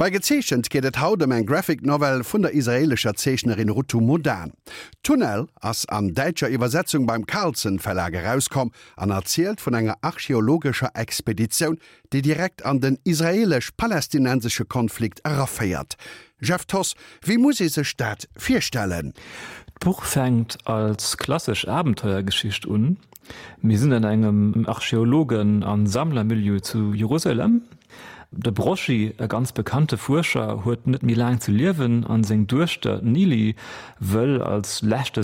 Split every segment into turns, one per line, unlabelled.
Bei Gezeechent geet et haut ëm eng Graphic Novel vun der israeelescher Zeechnerin Rutu Modan. Tunnel ass an däitscher Iwwersetzung beim Carlsen Verlag erauskomm an erzielt vun enger archeologescher Expeditioun, déi direkt an den israeelesch-palästinensesche Konflikt eraféiert. Jeff Thoss, wéi muss ee sech dat virstellen?
D'Buch fänkt als klassesch Abenteuergeschicht un. Mir sinn an engem Archeologen a Sammlermilieu zu Jerusalem. De Broschi, e ganz bekannte Fuerscher, huet net méi laang ze liewen an seng Duechter, d'Nili, wëll als leschte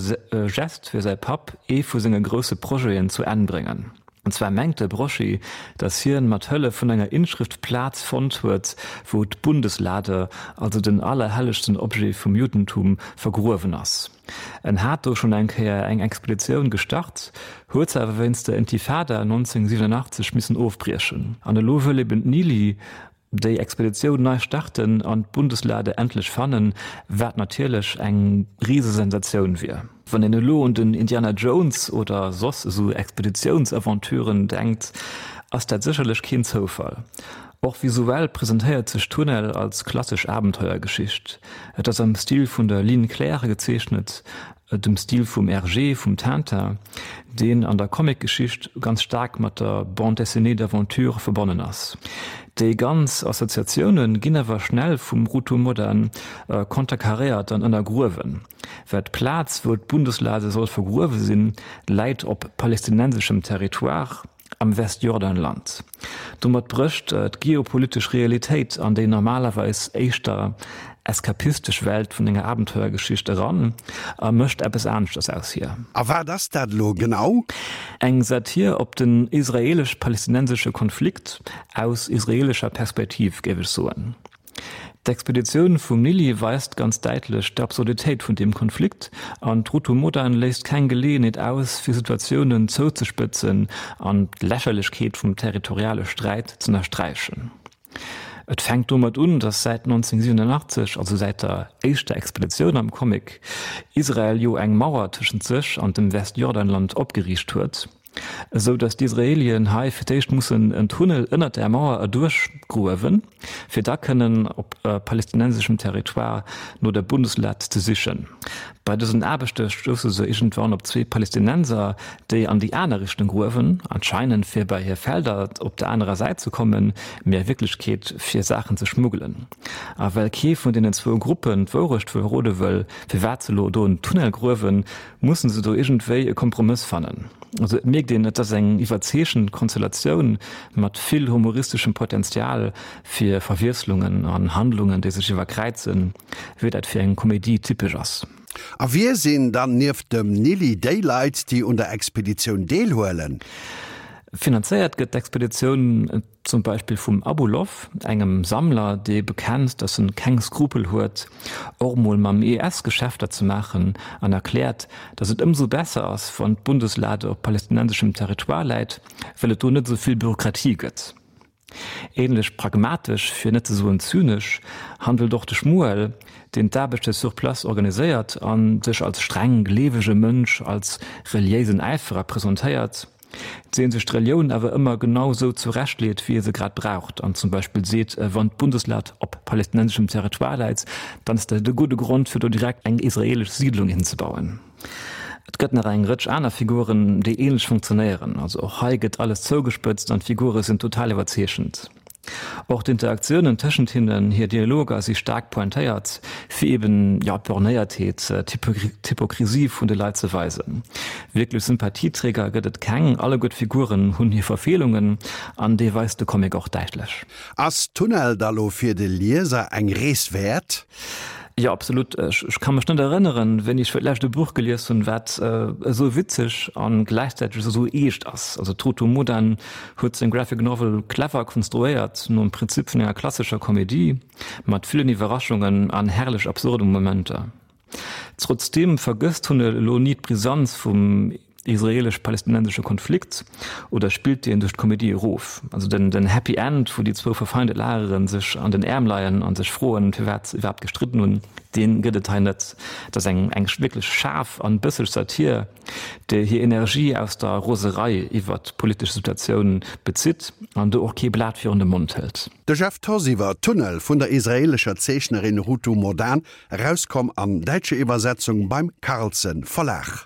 Gest fir säi Papp ee vu senge grousse Projeten zu Enn bréngen. An zwar mengt de Broschi, datt hien mat Hëllef vun enger Inschrëft d'Plaz fonnt huet, wou d'Bundeslade, also den allerhellegsten Objet vum Juddentum, vergruewen ass. En hat do schonn eng Kéier eng Expeditioun gestart, huet se awer wéinst der Intifada 1987 missen ofbriechen. An elo wëll eben d'Nili déi Expeditioun nei starten an d'Bundeslade endlech fannen, wat natierlech eng Risesensatioun wier. Wann een elo un den Indiana Jones oder soss esou Expeditiounsaventuren denkt, ass dat sécherlech keen Zoufall. Och visuell presentéiert sech Tunnel als klassesch Abenteuergeschicht. Et ass am Stil vun der Ligne claire gezeechnet, dem Stil vum Hergé, vum Tintin, deen an der Comicgeschicht ganz staark mat der Bande dessinée d'aventure verbonnen ass. Déi ganz Assoziatioune ginn awer schnell vum Rutu Modan konterkaréiert an ënnergruewen, well d'Plaz, wou d'Bundeslade soll vergruewe sinn, läit op palestinenseschem Territoire. am Westjordanland. Domat brécht d'geopolitesch Realitéit an déi normalerweis éischter eskapistesch Welt vun enger Abenteuergeschicht eran a mécht eppes aneschters aus hir.
A wat ass dat elo genau?
Eng Satir op den israelesch-palestinensesche Konflikt aus israelescher Perspektiv, géif ech soen. D'Expeditioun vum Nili weist ganz däitlech d'Absurditéit vun deem Konflikt an d'Rutu Modan léisst keng Geleeënheet aus, fir Situatiounen zouzespëtzen an d'Lächerlechkeet vum territoriale Sträit z'ënnersträichen. Et fänkt domat un, datt säit 1987, also säit der éischter Expeditioun am Comic, Israel jo eng Mauer tëschent sech an dem Westjordanland opgeriicht huet. Esou datt d'Israelien hei fir d'éischt mussen en Tunnel ënnert där Mauer erduerch gruewen, fir da kënnen op palestinenseschem Territoire no der Bundeslad ze sichen. Bei dësen Aarbechte stousse se iergendwann op zwee Palestinenser, déi an déi aner Richtung gruewen, anscheinend fir bei hir Felder op der anerer Säit ze kommen, mee a Wierklechkeet fir Saachen ze schmuggelen. A well kee vun deenen zwou Gruppen d'Wourecht verrode wëll, firwat se elo do en Tunnel gruewen, mussen se do iergendwéi e Kompromëss fannen. Also et mierkt een, et ass eng iwwerzeechent Konstellatioun mat vill humoristeschem Potenzial fir Verwiesslungen an Handlungen, déi sech iwwerkräizen, wéi dat fir eng Komedie typesch ass.
A wie sinn dann nieft dem Nili déi Leit, déi un der Expeditioun deelhuelen?
Finanzéiert gëtt d'Expeditioun Zum Beispill vum Abulow, engem Sammler, dee bekennt, datt en keng Skrupel huet, och mol mam IS Geschäfter ze maachen an erkläert, datt et ëmsou besser ass, wann d'Bundeslade op palestinenseschem Territoire läit, well et do net esou vill Bürokratie gëtt. Ähnlech pragmatesch, fir net ze soen zynesch, handelt och de Shmuel, deen d'Aarbechte sur place organiséiert a sech als streng gleewege Mënsch, als reliéisen Äiferer presentéiert. Deen sech d'Relioun awer ëmmer genau sou zurechtleet, wéi e se grad braucht, an zum Beispill seet, wann d'Bundeslad op palestinenseschem Territoire läit, dann ass dat e gudde Grond, fir do direkt eng israelesch Siidlung hinzebauen. Et gëtt nach eng Rëtsch aner Figuren, déi ähnlech funktionéieren. Also och hei gëtt alles zougespëtzt an d'Figure sinn total iwwerzeechent. Och d'Interaktiounen tëschent hinnen, hir Dialoger si staark pointéiert, fir eben, jo, d'Bornéiertheet, d'Hypokrisie vun de Leit ze weisen. Wierklech Sympathieträger gëtt et keng, alleguer d'Figuren hunn hir Verfeelungen an déi weist de Comic och däitlech.
Ass Tunnel da lo fir de Lieser eng Rees wäert?
Jo, absolut. Ech ka mech net erënneren, wéini ech fir d'lescht e Buch gelies hunn, wat esou witzeg a gläichzäiteg esou eescht ass. Also d'Rutu Modan huet seng Graphic Novel clever konstruéiert, nom Prinzip vun enger klassescher Komedie, mat villen Iwwerraschungen an herrlech absurde Momenter. Trotzdeem vergësst Tunnel elo ni d'Brisanz vum. israelesch-palästinensesche Konflikt oder spillt deen duerch d'Komedie erof? Also den, den Happy End, wou déi zwou verfeinde Lagere sech an den Äerm leien a sech froen, firwat se iwwerhaapt gestridden hunn, dee gëtt et hei net. Et ass eng, eng wierklech schaarf an bësseg Satir, déi hir Energie aus der Roserei iwwert d'politesch Situatioun bezitt an do och kee Blat virun de Mond hëlt.
De Jeff Thoss iwwer Tunnel vun der israeelescher Zeechnerin Rutu Modan, erauskomm an däitscher Iwwersetzung beim Carlsen Verlag.